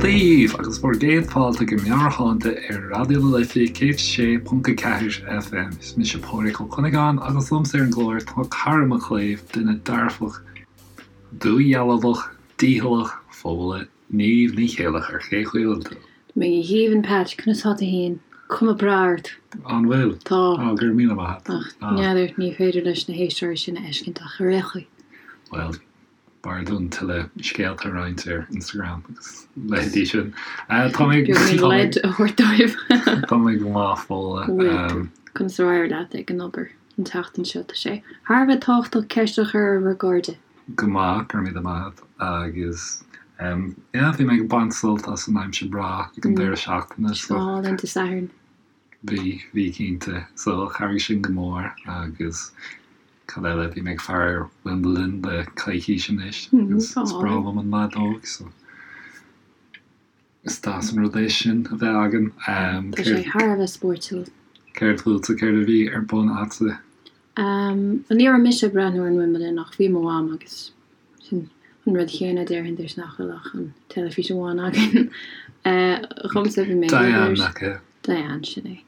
daoibh agus bhur gcéad fáilte go Meabhairshláinte ar Raidió na Life 106.4 FM. Is mise Pádraig Ó Cuinneagáin agus liomsa ar an gclár tá cara mo chléibh, duine dearfach, dúdhealbhach, dícheallach, Fódhla Niamh Ní Chéileachair. Cén chaoi a bhfuil tú? Tá mé go haoibhinn Pat, conas tá tú fhéin? Cuma breá ort. An bhfuil? Tá. Á, go raibh míle maith agat. Ach n'fheadar, ní féidir leis na héisteoirí sin a fheiscint ach ar aon chaoi. Bhuel, B'fhearr dúinn tuilleadh scéalta a roinnt ar Instagram agus leithéidí sin. Tá mé Beagáinín leid a thabhairt dóibh. Tá mé go maith, Fódhla. Bhfuil tú? Conas ar éirigh leat ag an obair an tseachtain seo? Tá sé thar a bheith tábhachtach ceist a chur ar bhur gcairde. Go maith, go raibh míle maith agat. Agus yeah, bhí mé ag baint sult as an aimsir breá ag an deireadh seachtaine so. Álainn Dé Sathairn. Bhí, bhí cinnte. So chabhraigh sin go mór agus cad eile, bhí mé ag faire ar Wimbledon le coicís anois agus is breá liom an leadóg so is deas an rud é sin a bheith againn. Tá sé thar a bheith spóirtiúil. Céard fútsa, céard a bhí ar bun a'dsa? Ní raibh mise ag breathnú ar an Wimbledon ach bhí mo mham agus sin an rud chéanna déarfainn duit nach bhfuil ach an teilifís amháin againn. Dhomsa bhí mé ag obair. Diane, nach ea? Diane, sin é.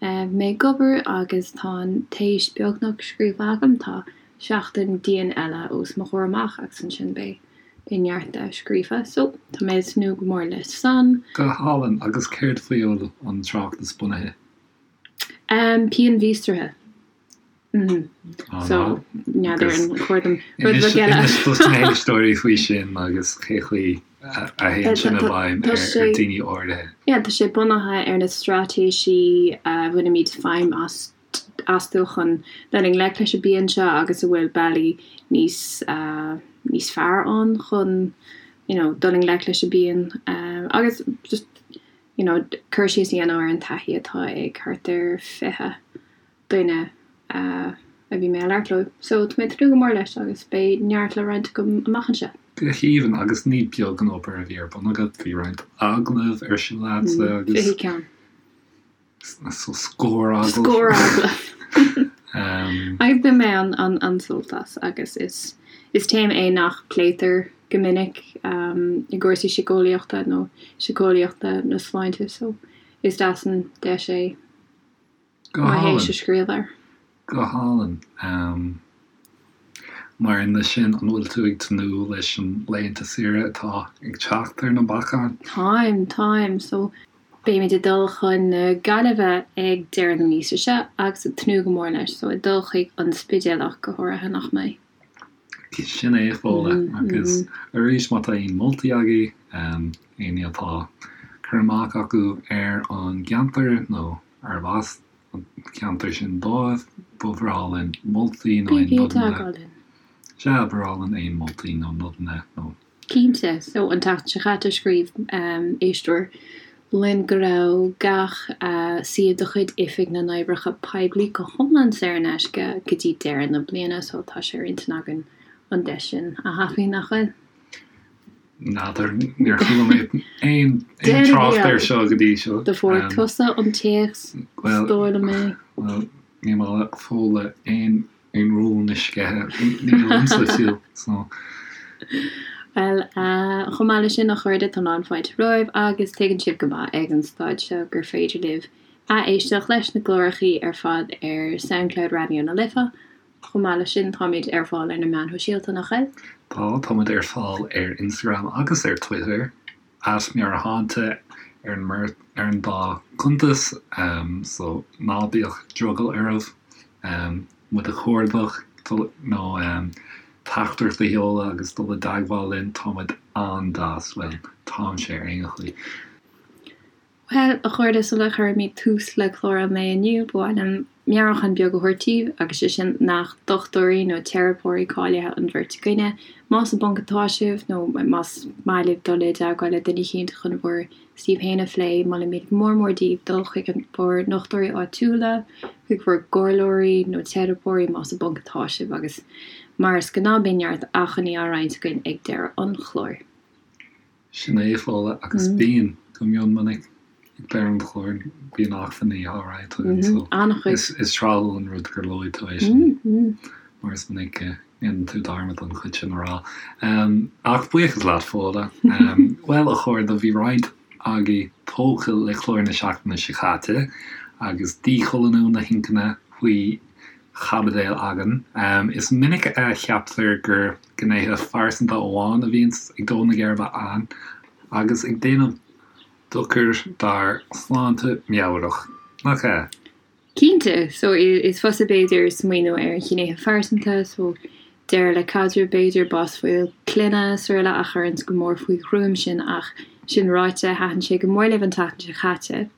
Bhí mé ag obair agus tá an téis beagnach scríofa agam, tá seachtain dian eile os mo chomhair amach agus ansin beidh beidh neart de scríofa so tá mé ag tnúth go mór leis san. Go hálainn, agus céard faoi a bhfuil an tráchtas bunaithe? Pian mhíostraithe. So, n'fheadar an chóir dom rud beag eile. Inis dos na héisteoirí faoi sin agus cé chaoi a théann sin i bhfeidhm ar daoine áirithe. Yeah, tá sé bunaithe ar na straitéisí a bhainimid feidhm astu chun dul i ngleic leis an bpian seo agus a bhfuil bealaí níos níos fearr ann chun you know dul i ngleic leis an bpian agus just you know, cur síos a dhéanamh ar an taithí atá ag thart ar 20 duine a bhí mé ag labhairt leo. So, tá mé ag tnúth go mór leis agus beidh neart le roinnt agam amach anseo. Go haoibhinn, agus ní beag an obair a bhí ar bun agat, bhí roinnt agallamh ar siúl a'dsa agus. 20 ceann. So scór agallamh. Scór agallamh. Agus bhain mé an-sult as agus is is téama é nach pléitear go minic i gcúrsaí síceolaíochta nó síceolaíochta na sláinte so is deas an deis é Go mo hálainn. théis a scríobh air. Go hálainn. Mar aon leis sin, an bhfuil tú ag tnúth leis an laethanta saoire atá ag teacht ar na bacáin? Táim, táim. So, beimid ag dul chun na Gaillimhe ag deireadh na míosa seo agus ag tnúth go mór leis. So, ag dul chuig an Spidéal ach go háirithe, nach mbeidh? Sin é, a Fhódhla. Agus arís, má tá aon moltaí agaibh, éinne atá cur amach acu ar an gceantar nó arb as an ceantar sin dóibh, ba bhreá linn moltaí nó aon Bígí i nodanna. dteagmháil linn. Sea, ba bhreá linn aon moltaí nó nodanna nó. Cinnte. So, an tseachtain seo chaite, scríobh éisteoir linn go raibh gach suíomh de chuid Oifig na nOibreacha Poiblí go hiomlán saor in aisce go dtí deireadh na bliana, so tá sé ar intinn againn an deis sin a thapú, nach bhfuil? N'fheadar, níor chuala mé aon trácht air seo go dtí seo. Do fuair tusa an téacs, is dóigh liom é. Bhuel, ní maith le Fódhla aon rún a sceitheadh, ní liomsa fiú, so. Bhuel, chomh maith leis sin, a chairde, tá lán fáilte romhaibh agus tuigeann sibh go maith ag an staid seo gur féidir libh ath-éisteacht leis na clárachaí ar fad ar Soundcloud Raidió na Life, Chomh maith leis sin, táimid ar fáil ar na meáin shóisialta, nach bhfuil? Tá, táimid ar fáil ar Instagram agus ar Twitter, at Meabhairshláinte ar an mbeirt, ar an dá chuntas, so ná bíodh drogall oraibh muid a chuardach nó teachtaireacht a sheoladh agus dul i dteagmháil linn, táimid an-deas, bhuel, táimse ar aon chaoi. Bhuel, a chairde, sula gcuirimid tús le clár an lae inniu, ba mhaith liom meabhrúchán beag a thabhairt daoibh, agus sé sin nach dochtúirí nó teiripeoirí cáilithe an bheirt againne. Más i bponc atá sibh, nó más maith libh dul i dteagmháil le duine eicínt chun bhur suíomh féin a phlé, molaimid go mór mór daoibh dul chuig bhur ndochtúirí áitiúla, chuig bhur gcomhairleoirí nó teiripeoirí más i bponc atá sibh, agus mar is gnáth beidh neart acmhainní á roinnt againn ag deireadh an chláir. Sin é, a Fhódhla, agus bíonn, go mion minic, ag deireadh an chláir, bíonn acmhainní á roinnt againn, so is tráthúil an rud gur luaigh tú é sin, mar is minic go. Dhéanann tú dearmad an chuid sin a rá. Ach buíochas leat, Fódhla. Bhuel, a chairde, bhí roinnt agaibh tógtha le clár na seachtaine seo caite agus díchoilíniú na hinchinne faoi chaibidil againn. Is minic a cheaptar gur gnéithe phearsanta amháin a bhíonns ag dó na geirbe againn agus ag déanamh dochar dár sláinte meabhrach, nach ea? Cinnte, so is fusa b'fhéidir smaoineamh ar ghnéithe phearsanta, so deireadh le caidreamh b'fhéidir, bás bhaill clainne srl. a chuireanns go mór faoi ghruaim sinn ach sin ráite thaitin sé go mór libh an tseachtain seo caite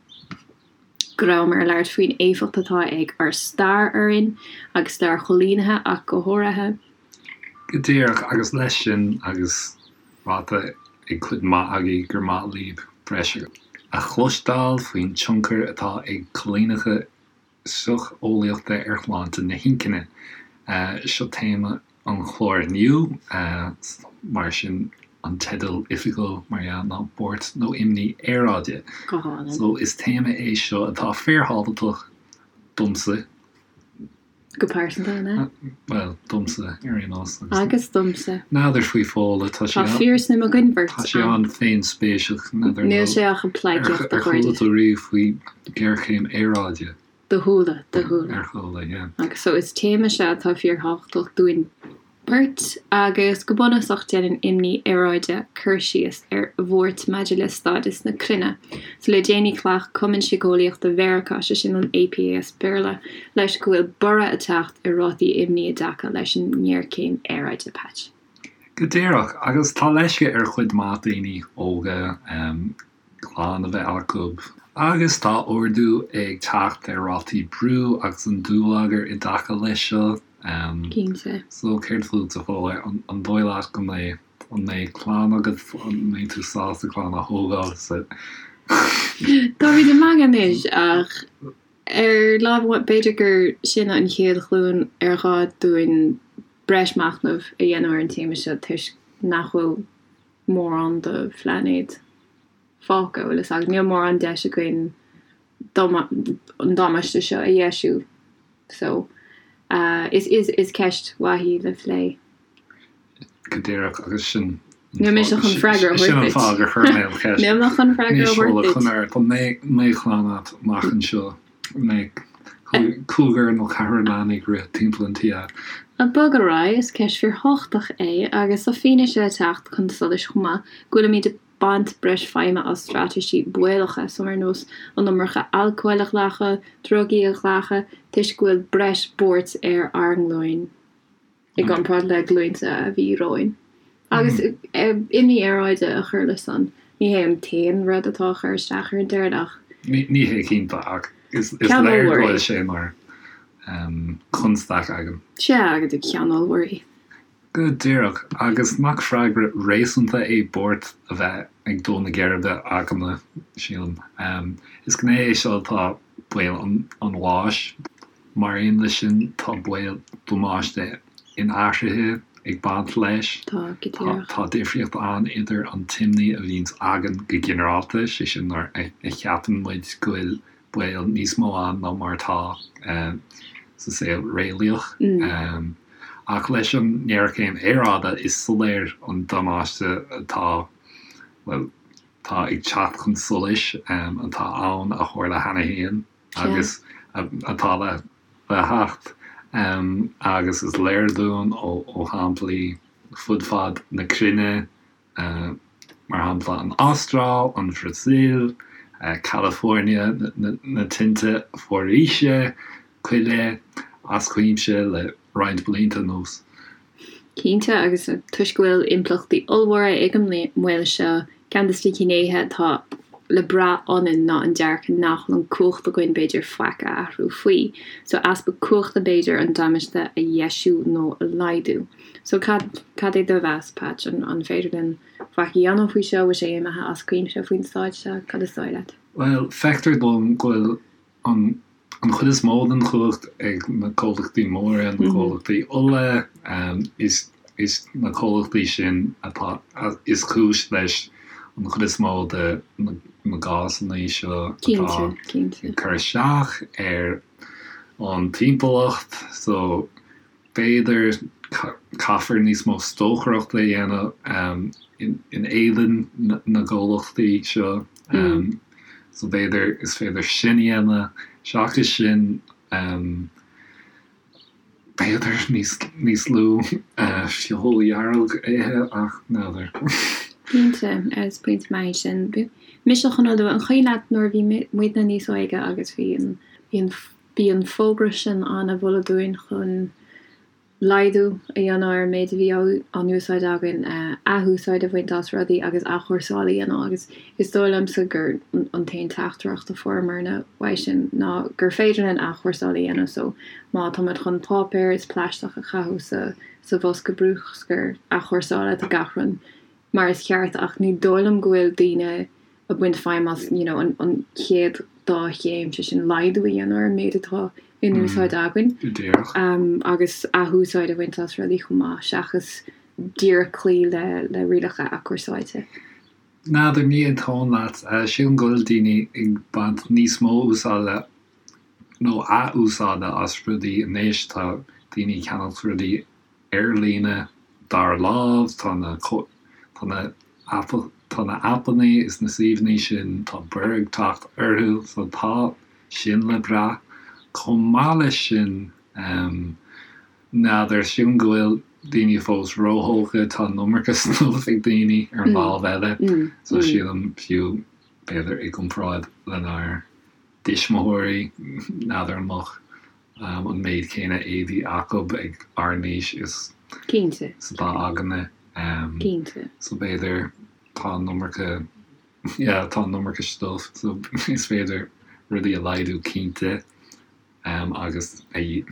go rabhamar ag labhairt faoin éifeacht atá ag ár stair orainn agus stair choilínithe ach go háirithe. Go díreach, agus leis sin agus ráite ag cuid mhaith agaibh gur maith libh breis a chloisteáil faoin tionchar atá ag coilíneacha socheolaíochta ar shláinte na hinchinne. Seo téama an chláir inniu, mar sin an teideal oifigiúil, mar dhea, ná Buairt nó Imní Aeráide. Go hálainn. So is téama é seo atá fíorthábhachtach domsa. Go pearsanta, an ea? Bhuel, domsa, ar aon nós. Agus domsa. N'fheadar faoi Fódhla, tá sí. Tá fíorsuim againn beirt ann. Tá sí an-fhéinspéiseach, n'fheadar. Níl sé ach ag pleidhcíocht, a chairde. Ar chuala tú riamh faoi ghéarchéim aeráide? Do chuala, do chuala. Ar chuala, yeah. Agus so is téama seo atá fíorthábhachtach dúinn beirt agus go bunúsach déanann imní aeráide cur síos ar bhuairt maidir le stádas na cruinne. So le déanaí ghlac Cumann Síceolaíochta Mheiriceá, sé sin an APA as Béarla, leis go bhfuil borradh ag teacht ar rátaí imní i dtaca leis an ngéarchéim aeráide. Patch. Go díreach, agus tá leisce ar chuid mhaith daoine óga clann a bheith acu, agus tá ardú ag teacht ar rátaí brú agus an dúlagar i dtaca leis seo. Cinnte. So, céard fút, a Fhódhla? An dóigh leat go mbeidh, an mbeidh clann agat, an mbeidh tú sásta clann a thógáil sa. Táimid ag magadh anois ach ar láimh amháin, b'fhéidir gur sinne an chéad ghlúin ar ghá dúinn breis machnaimh a dhéanamh ar an téama seo toisc nach bhfuil mórán de phláinéad fágtha, bhfuil fhios agat. Níl mórán deis againn an damáiste seo a dheisiú. So, is, is, is ceist mhaith í le plé. Go díreach, agus sin Níl mise chun freagra a thabhairt Sin an fáth gur chuir mé an cheist. Níl mé chun freagra a thabhairt duit. Chun ar, an mbeidh clann agat amach anseo? Mbeidh cúigear nó ceathrar leanaí ag rith timpeall an tí agat? Ag bogadh ar aghaidh, is ceist fíorthábhachtach é agus tá fianaise ag teacht chun solais chomh maith go bhfuilimid ag baint breis feidhme as straitéisí baolacha, so ar nós an iomarca alcóil a ghlacadh, drugaí a ghlacadh, toisc go bhfuil breis buairt ar ár nglúin. i gcomparáid le glúinte a bhí romhainn. Agus imní aeráide a chur leis san, ní hé an t-aon rud atá ag cur isteach ar an deireadh ach. Ní hé cinnte ach is léir go bhfuil sé mar chonstaic againn. Sea, agus ceann ollmhór í. Go díreach, agus nach freagra réasúnta é buairt a bheith ag dó na geirbe againne, sílim. Is gné é seo atá baol an bháis. Mar aon leis sin, tá baol damáiste inathraithe ag baint leis. Tá, go díreach. Tá difríocht ann idir an t-imní a bhíonns againn go ginearálta, sé sin nuair a cheapann muid go bhfuil baol níos mó ann ná mar atá sa saol réalaíoch. Ach leis an ngéarchéim aeráide, is soiléir an damáiste atá, bhuel, atá ag teacht chun solais, atá ann, a tharla cheana féin. agus atá le theacht, agus is léir dúinn ó shamplaí fud fad na cruinne, mar shampla an Astráil, an Bhrasaíl, California, na tinte foraoise, coille, as cuimse le roinnt blianta anuas. Cinnte, agus toisc go bhfuil impleachtaí ollmhóra ag an mbaol seo, ceann de na gnéithe atá le brath ionainn ná an dearcadh nach bhfuil an cumhacht againn b'fhéidir faic a athrú faoi. So easpa cumhachta b'fhéidir an damáiste a dheisiú nó a laghdú. So cad, cad é do mheas, Patch? An, an féidir linn faic a dhéanamh faoi seo? Bhfuil sé imithe as cuimse faoin staid seo? Cad is dóigh leat? Bhuel, feictear dom go bhfuil an an chuid is mó den chumhacht ag na comhlachtaí móra, na comhlachtaí ola, is is na comhlachtaí sin atá is cúis leis an chuid is mó de na gásanna seo atá ag cur isteach ar an timpeallacht. So b'fhéidir. Caithfear níos mó stocaireachta a dhéanamh in éadan na gcomhlachtaí seo. So b'fhéidir is féidir sin a dhéanamh. Seachas sin, b'fhéidir níos lú feoil dhearg a ithe ach n'fheadar. Cinnte, is pointe maith é sin. Mise chun a lua, an cuimhin leat nuair a bhí muidne níos óige agus bhí an, bhí an, bhí an fógra sin ann a mholadh dúinn chun laghdú a dhéanamh ar an méid a bhí á n-úsáid againn, athúsáid a bhaint as rudaí agus athchúrsáil a dhéanamh agus is dóigh liomsa gur an t-aon teachtaireacht a fuaireamarna uaidh sin ná gur féidir linn athchúrsáil a dhéanamh so má táimid chun páipéar is plaisteach a chaitheamh sa sa bhosca bruscair athchúrsála tá gach rud mar is ceart ach ní dóigh liom go bhfuil daoine ag baint feidhm as you know an an chéad dá chéim, sé sin laghdú a dhéanamh ar an méid atá in úsáid againn Go díreach. agus athúsáid a bhaint as rudaí chomh maith seachas díreach cloí le le rialacha athchúrsáilte. N'fheadar, ní aontóinn leat. Sílim go bhfuil daoine ag baint níos mó úsáide nó athúsáide as rudaí anois. Tá daoine ag ceannacht rudaí ar líne dara lámh, tá na tá na tá na aipeanna is na suíomhanna sin, tá borradh ag teacht orthu, so tá sin le brath. Chomh maith leis sin, n'fheadar, sílim go bhfuil daoine fós róthógtha, tá an iomarca stuif ag daoine ar an lámh eile, so sílim fiú, b'fhéidir i gcomparáid lenár dtuismitheoirí, n'fheadar an mbeadh an méid céanna éadaí acu ag ár n-aois is Cinnte. is atá againne. Cinnte. So b'fhéidir tá an iomarca, yeah, tá an iomarca stuif so is féidir rudaí a laghdú cinnte agus a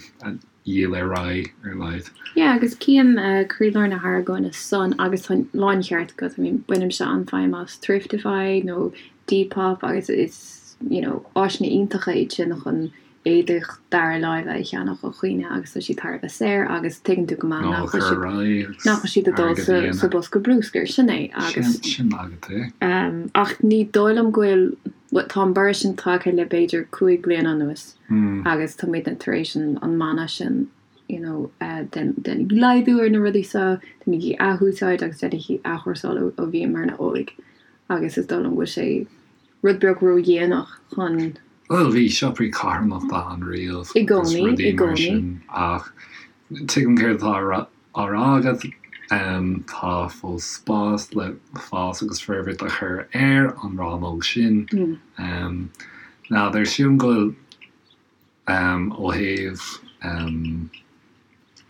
dhíol ar aghaidh ar a laghad. Yeah, agus cím croílár na hargóna san agus tá láncheart agat, I mean bainimse an-fheidhm as Thriftify nó Depop agus is, you know, áiseanna iontacha iad sin chun éadach dara láimhe a cheannach ó dhaoine agus tá siad thar a bheith saor agus tuigeann tú go maith nach bhfuil siad nach bhfuil siad ag dul sa sa bosca bruscair, sin é agus Sin agat é. Ach ní dóigh liom go bhfuil, bhuel tá an borradh sin tagtha le b'fhéidir 5 bliana anuas agus tá muidne tar éis an an mana sin you know déanaigí laghdú ar na rudaí seo, déanaigí athúsáid agus déanaigí athchúrsáil ó ó bhíomarna óg agus is dóigh liom go bhfuil sé rud beag ródhéanach chun. Bhuel, bhí siopaí carthanachta ann riamh I agus gcónaí, rudaí i mar gcónaí. sin ach tuigim céard atá á rá agat. Tá fós spás le fás agus forbairt a chur ar an rannóg sin. N'fheadar, sílim go bhfuil Ó thaobh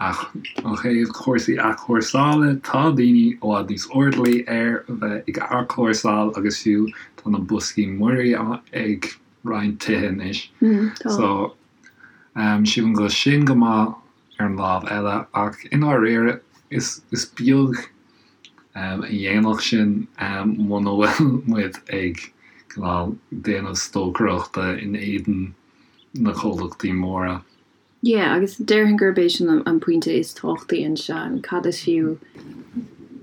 ó thaobh cúrsaí athchúrsála, tá daoine i bhfad níos airdeallaí ar a bheith ag athchúrsáil agus fiú tá na boscaí muirí ag roinnt tithe anois. So, sílim go bhfuil sin go maith ar an lámh eile ach i ndáiríre is is beag a dhéanfadh sin muna bhfuil muid ag cineál déanamh stocaireachta in éadan na comhlachtaí móra. Yeah, agus déarfainn gurb é sin an pointe is tábhachtaí anseo, cad is fiú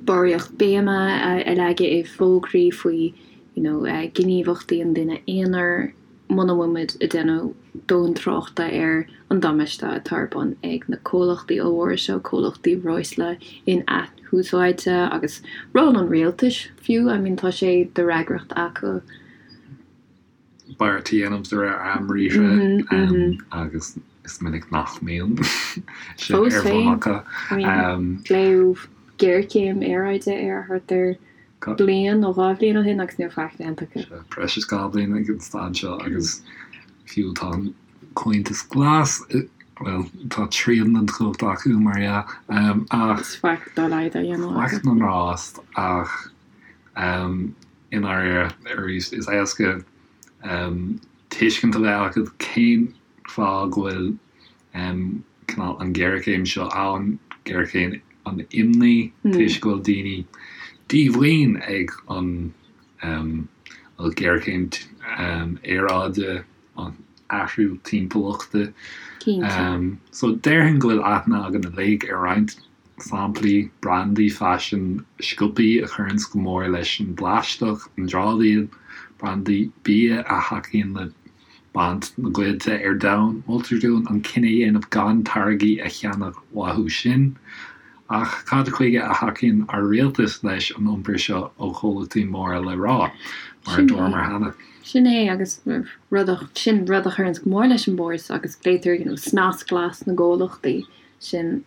barraíocht béime a leagadh i bhfógraí faoi you know gníomhaíochtaí an duine aonair muna bhfuil muid ag déanamh dóthain tráchta ar an damáiste atá ar bun ag na comhlachtaí ollmhóra seo, comhlachtaí breosla in-athúsáidte agus ról an rialtais fiú, I mean tá sé de fhreagracht acu. beart a dhéanamh de réir am briathra agus is minic nach mbíonn sin Fós ar bun féin, acu. I mean, glaodh géarchéim aeráide air thart ar bliain nó dhá bhliain ó shin agus níl faic déanta acu. Breis is 2 bhliain ag an staid seo agus fiú tá an Comhaontas Glas, bhuel, tá trian den chumhacht acu mar dhea, ach. Is faic dá laghad á dhéanamh acu. Faic na ngrást ach i ndáiríre arís is éasca tuiscint a bheith agat cén fáth go bhfuil cineál an ghéarchéim seo ann, géarchéim an imní, toisc go bhfuil daoine díomhaoin ag an bhuel géarchéim aeráide, an athrú timpeallachta. Cinnte. So déarfainn go bhfuil aithne againn uilig ar roinnt samplaí, brandaí faisin, siopaí a chuireanns go mór leis an bplaisteach, an dramhaíl, brandaí bia a thacaíonn le baint na gcoillte ar domhan. Moltar dúinn an cinneadh a dhéanamh gan táirgí a cheannach uathu sin. Ach cad chuige a thacaíonn ár rialtas leis an iompar seo ó chomhlachtaí móra le rá, mar a dúramar cheana? Sin é, agus rud a, sin rud a chuireanns go mór leis an bpórs agus glaotar, you know, snas glas na gcomhlachtaí sin.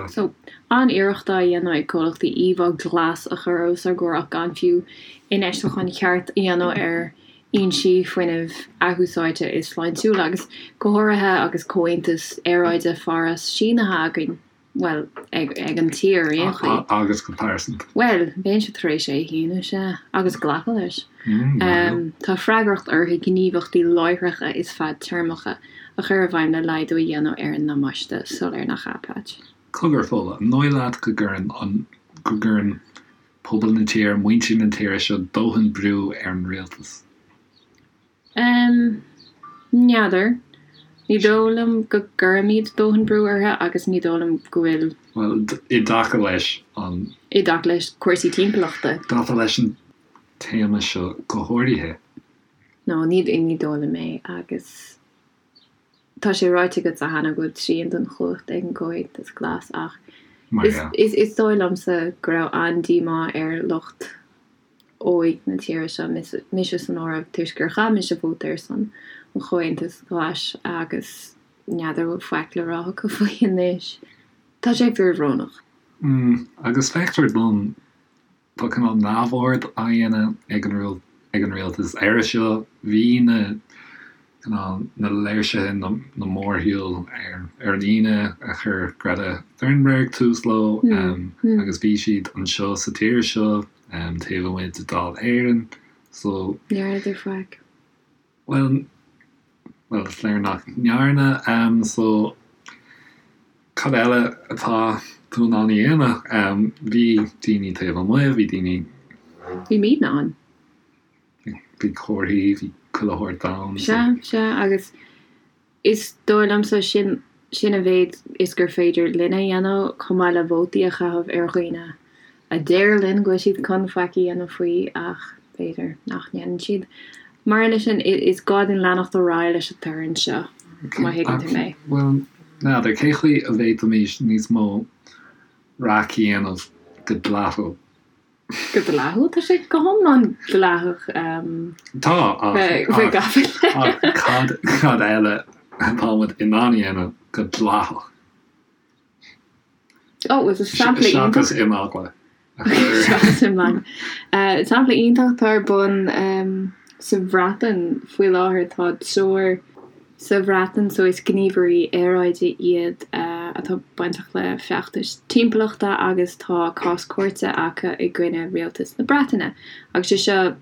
So, an-iarracht á dhéanamh ag comhlachtaí íomhá glas a chur os ár gcomhair ach gan fiú infheistiúchán ceart a dhéanamh ar fhoinsí fuinnimh athúsáidte is sláintiúla, agus go háirithe agus Comhaontas Aeráide Pháras sínithe againn, bhuel, ag an tír ar aon chaoi. Agus go pearsanta. Bhuel, bheinnse tar éis é a shíniú, sea, agus glacadh leis. Tá freagracht orthu gníomhaíochtaí láithreacha is fadtéarmacha a chur i bhfeidhm le laghdú a dhéanamh ar an ndamáiste soiléir, nach ea, Patch? Cogar, Fódhla, an dóigh leat go gcuireann an, go gcuireann pobal na tíre, muintir na tíre seo dóthain brú ar an rialtas? Em, n'fheadar. Ní dóigh liom go gcuirimid dóthain brú orthu agus ní dóigh liom go bhfuil. Bhuel, i dtaca leis an. I dtaca leis cúrsaí timpeallachta. I dtaca leis an téama seo go háirithe. No, ní, ní dóigh liom é agus. Tá sé ráite agatsa cheana go bhfuil trian den chumhacht ag an gComhaontas Glas ach is dóigh liomsa go raibh an-díomá ar lucht óig na tíre seo, mise san áireamh, toisc gur chaith mise vóta ar son an Chomhaontais Ghlais agus n'fheadar an bhfuil faic le rá acu faoi anois. Tá sé fíorbhrónach. Agus feictear dom Tá cineál neamhaird á dhéanamh ag an ag an rialtas air seo. Bhí na cineál na léirsithe, na mórshiúil ar ar an Aoine a chuir Greta Thunberg tús leo agus bhí siad anseo sa tír seo taobh amuigh de Dáil Éireann so. Ní dhearnadar faic. Bhuel, bhuel, is léir nach ndearna. So, cad eile atá tú in ann a dhéanamh? Bhí daoine taobh amuigh, bhí daoine. Bhí muidne ann. Bhí comharthaí, bhí chuile shórt ann. Sea, sea, agus Is dóigh liomsa sin sin a mhéid is gur féidir linn a dhéanamh, chomh maith le vótaí a chaitheamh ar dhaoine a deir linn go bhfuil siad chun faic a dhéanamh faoi ach b'fhéidir nach ndéanann siad. Mar aon leis sin, is gá dúinn leanacht ar aghaidh leis an torann seo, má thuigeann tú mé. Bhuel, n'fheadar, cé chaoi a bhféadfaimis níos mó raic a dhéanamh go dleathúil? Go dleathúil? Tá sé go hiomlán dleathach. Tá, ach ach cad cad eile atá muid in ann a dhéanamh go dleathach? Ó, is sampla iontach. Seachas imeagla. Seachas imeagla. Sampla iontach atá ar bun sa Bhreatain faoi láthair, tá triúr sa Bhreatain so is gníomhairí aeráide iad atá bainteach le feachtais timpeallachta agus tá cás cúirte acu i gcoinne rialtas na Breataine agus sé seo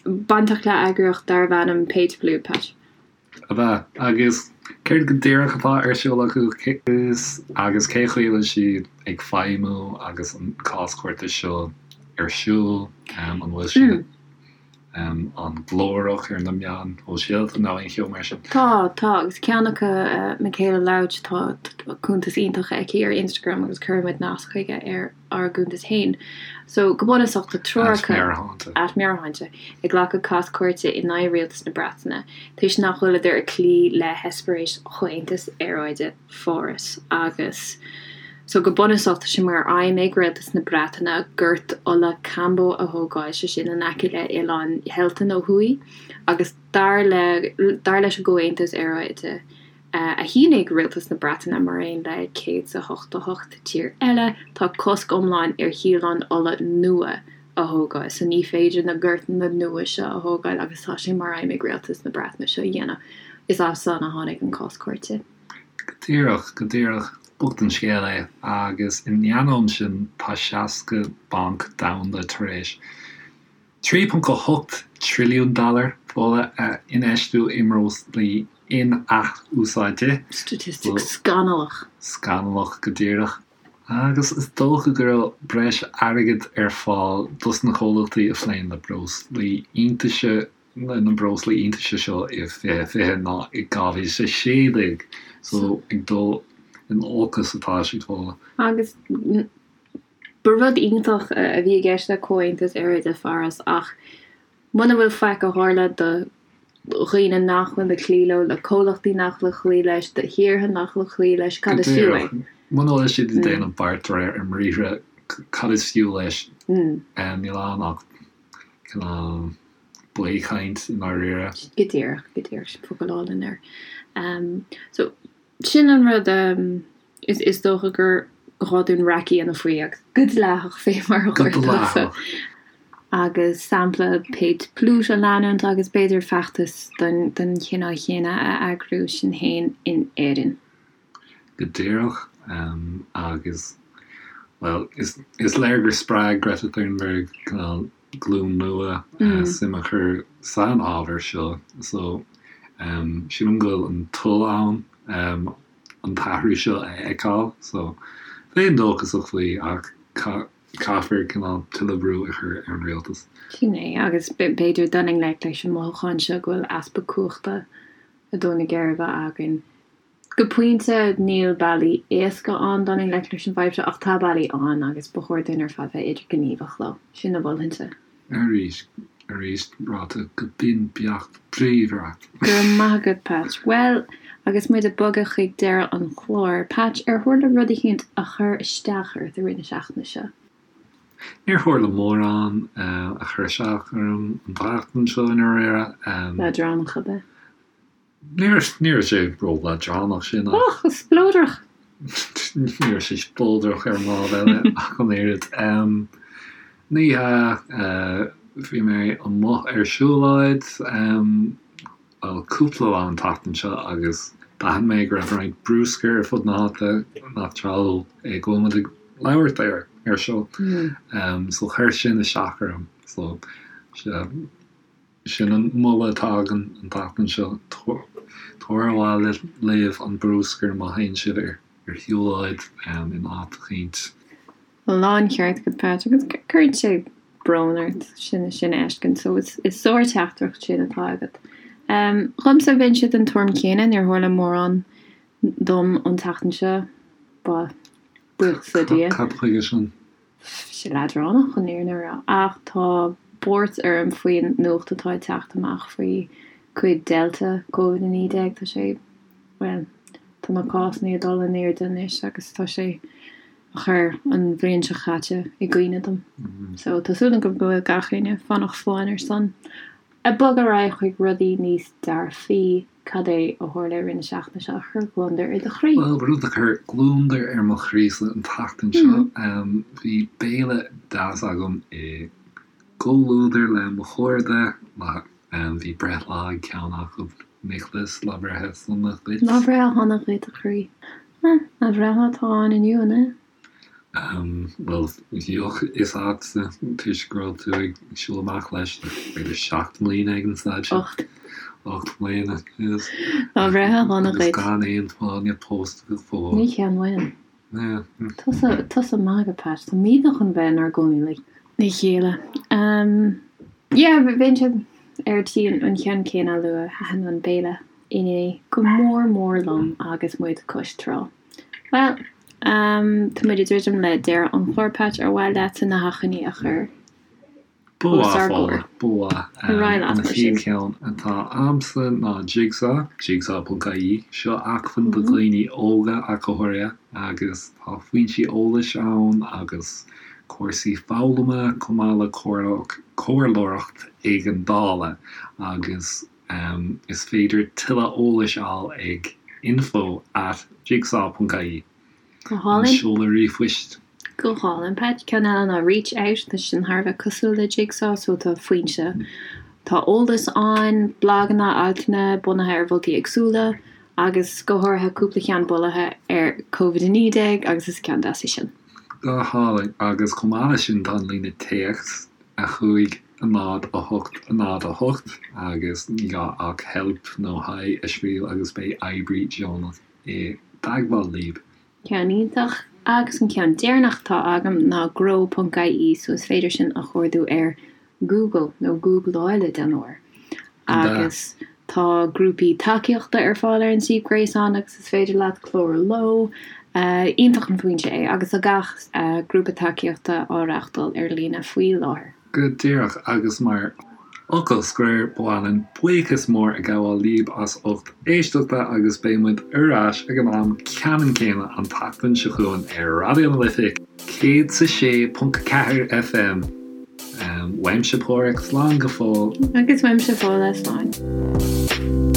bainteach le eagraíocht darbh ainm Pay to Pollute, Pat. Ab ea? Agus céard go díreach atá ar siúl acu agus cé chaoi a bhfuil siad ag feidhmiú agus an cás cúirte seo ar siúl? An bhfuil siad an-ghlórach ar na meáin shóisialta nó aon cheo mar sin? Tá, tá, agus ceann acu, Michaela Louch, tá cuntas iontach aici ar Instagram agus cuirfidh muid nasc chuige ar ár gcuntas féin. So, go bunúsach, tá triúr acu, at Meabhairshláinte, ag glacadh cás cúirte in aghaidh rialtas na Breataine toisc nach bhfuileadar ag cloí le heispéiris Chomhaontas Aeráide Pháras agus so go bunúsach tá sé mar aidhm ag rialtas na Breataine gort ola Cambo a thógáil, sé sin in aice le Oileán Shelton ó thuaidh agus dar le dar leis an gComhaontas Aeráide a shínigh rialtas na Breataine mar aon le 188 tír eile tá cosc iomlán ar shíoláin ola nua a thógáil so ní féidir na gortanna nua seo a thógáil agus tá sé mar aidhm ag rialtas na Breataine seo a dhéanamh. Is as san a tháinig an cás cúirte. Go díreach, go díreach. Bocht an scéal é. Agus in ainneoin sin, tá 60 banc domhanda tar éis 3.8 trilliún dollar ola a infheistiú i mbreoslaí in-athúsáidte. Statistic scannalach. Scannalach, go díreach. Agus is dócha go raibh breis airgid ar fáil dos na comhlachtaí a phléann le breoslaí iontaise na breoslaí iontaise seo i 2020 ná i 2016. So ag dul in olcas atá siad fós. Agus ba rud iontach a bhí i gceist le Comhaontas Aeráide Pháras ach muna bhfuil faic a tharla do dhaoine nach bhfuil ag cloí leo, le comhlachtaí nach bhfuil ag cloí leis, do thíortha nach bhfuil ag cloí leis, cad is fiú é? Muna bhfuil siad ag déanamh beart de réir a mbriathra, cad is fiú leis? Níl ann ach cineál baothchaint i ndáiríre. Go díreach, go díreach, sin focal álainn air. So, sin an rud is dócha gur ghá dúinn raic a dhéanamh faoi agus go dleathach fé mar a Go dleathach. Agus sampla Paet Pluut a leanúint agus b'fhéidir feachtas den chineál chéanna a eagrú sinn féin in Éirinn. Go díreach. Agus, bhuel, is léir gur spreag Greta Thunberg cineál glúin nua suim a chur san ábhar seo. So, sílim go bhfuil an toil ann an t-athrú seo a fheiceáil. So, bheinn dóchasach faoi ach caithfear cineál tuilleadh brú a chur ar an rialtas. Sin é, agus b'fhéidir dul i ngleic leis an mothúchán seo go bhfuil easpa cumhachta ag dó na geirbe againn. Go pointe, níl bealaí éasca ann dul i ngleic leis an bhfadhb seo, ach tá bealaí ann agus ba chóir dúinn ar fad bheith idirghníomhach leo. Sin a mholfainnse. Arís, arís ráite go binn beacht bríomhar agat. Go raibh maith agat, Patch. Bhuel, agus muid ag bogadh chuig deireadh an chláir, Patch, ar tharla rud eicínt a chuir isteach ort i rith na seachtaine seo? Níor tharla mórán a chuir isteach orm an tseachtain seo i ndáiríre. Leadránach ab ea? Ní raibh sé ró-leadránach sin ach. Och, spleodrach! Ní raibh sé spleodrach ar an lámh eile ach an oiread. Ní hea, bhí mé amuigh ar siúlóid, bhuel, cúpla lá an tseachtain seo agus d'aithin mé go raibh roinnt bruscair ar fud na háite nach tráthúil é go bhfuil muid ag labhairt air air seo. So chuir sin isteach orm. So, sea. Sin an moladh atá agam an tseachtain seo, tabhair abhaile libh an bruscar má théann sibh ar shiúlóid in áit eicínt. Láncheart agat Patch, agus cuireann sé brón ort sin sin a fheiscint, so is sár-teachtaireacht sin atá agat. Dhomsa, bheinnse den tuairim chéanna, níor tharla mórán dom an tseachtain seo, buíochas le Dia. Cad chuige sin? sé leadránach chun an fhírinne a rá, ach tá buairt orm faoin nuacht atá ag teacht amach faoi cuid Delta Covid-19. Tá sé, bhuel, tá na cásanna ag dul in airde anois agus tá sé a chur an bhliain seo caite i gcuimhne dom. So tá súil agam go bhfuil gach éinne fánach folláin ar son. Ag bogadh ar aghaidh chuig rudaí níos dearfaí, cad é a tharla i rith na seachtaine seo a chuir gliondar ar do chroí? Bhuel, rud a chuir gliondar ar mo chroísa an tseachtain seo, bhí béile deas agam i gcomhluadar le mo chairde. Bhí breithlá ag ceann acu, Nicholas, lá breithe sona dhuit. Lá breithe shona dhuit, a chroí. Lá breithlá atá ann inniu, an ea? Bhuel, bheadh a fhios agatsa toisc go raibh tú ag siúl amach leis le b'fhéidir 7 mbliana ag an staid seo. 8. 8 mbliana, yes. Lá breithe shona dhuit. Agus gan aon fáinne pósta go fóill. Ní cheannóinn. Tusa, tusa maith agat, Pat. Táimidne chun bheith inár gcónaí le chéile. Yeah, bheinnse ar tí an ceann céanna a lua. Thaitin an béile inné go mór mór liom agus muid cois trá. Bhuel, tá muid ag druidim le deireadh an chláir, Patch, ar mhaith leatsa na hachainí a chur Ba os mhaith, ár gcomhair? Ba mhaith. Ar aghaidh leat, An mar sin. chéad cheann atá a'msa ná Jigsaw, jigsaw.ie. Seo acmhainn do dhaoine óga ach go háirithe agus tá foinsí eolais ann agus cúrsaí foghlama chomh maith le comhairleoireacht éigeandála agus Is féidir tuilleadh eolais a fháil ag info at jigsaw ponc ie, Go hálainn. An seoladh ríomhphoist. Go hálainn, Pat. Ceann eile ná Reach Out, tá sin thar a bheith cosúil le Jigsaw, so tá foinse, tá eolas ann, blaganna, altanna bunaithe ar mholtaí éagsúla agus go háirithe cúpla ceann bunaithe ar Covid-19 agus is ceann deas é sin. Go hálainn. Agus chomh maith leis sin tá an líne téacs 5 0 8 0 8 agus ní gá ach help nó hi a scríobh agus beidh oibrí deonach i dteagmháil libh. Ceann iontach. Agus an ceann deireanach atá agam ná grow ponc ie so is féidir sin a chuardú ar Google nó Googláil a dhéanamh air. Agus tá grúpaí tacaíochta ar fáil ar an suíomh gréasáin agus is féidir leat clárú leo. Iontach an foinse é agus tá gach grúpa tacaíochta á reáchtáil ar líne faoi láthair. Go díreach, agus mar Fhocal scoir, ba mhaith linn buíochas mór a ghabháil libh as ucht éisteachta agus beidh muid ar ais ag an am ceannann céanna an tseachtain seo chugainn ar Raidió na Life 106.4 FM. Uaimse Páraic, slán go fóill. Agus uaimse Fódhla, slán.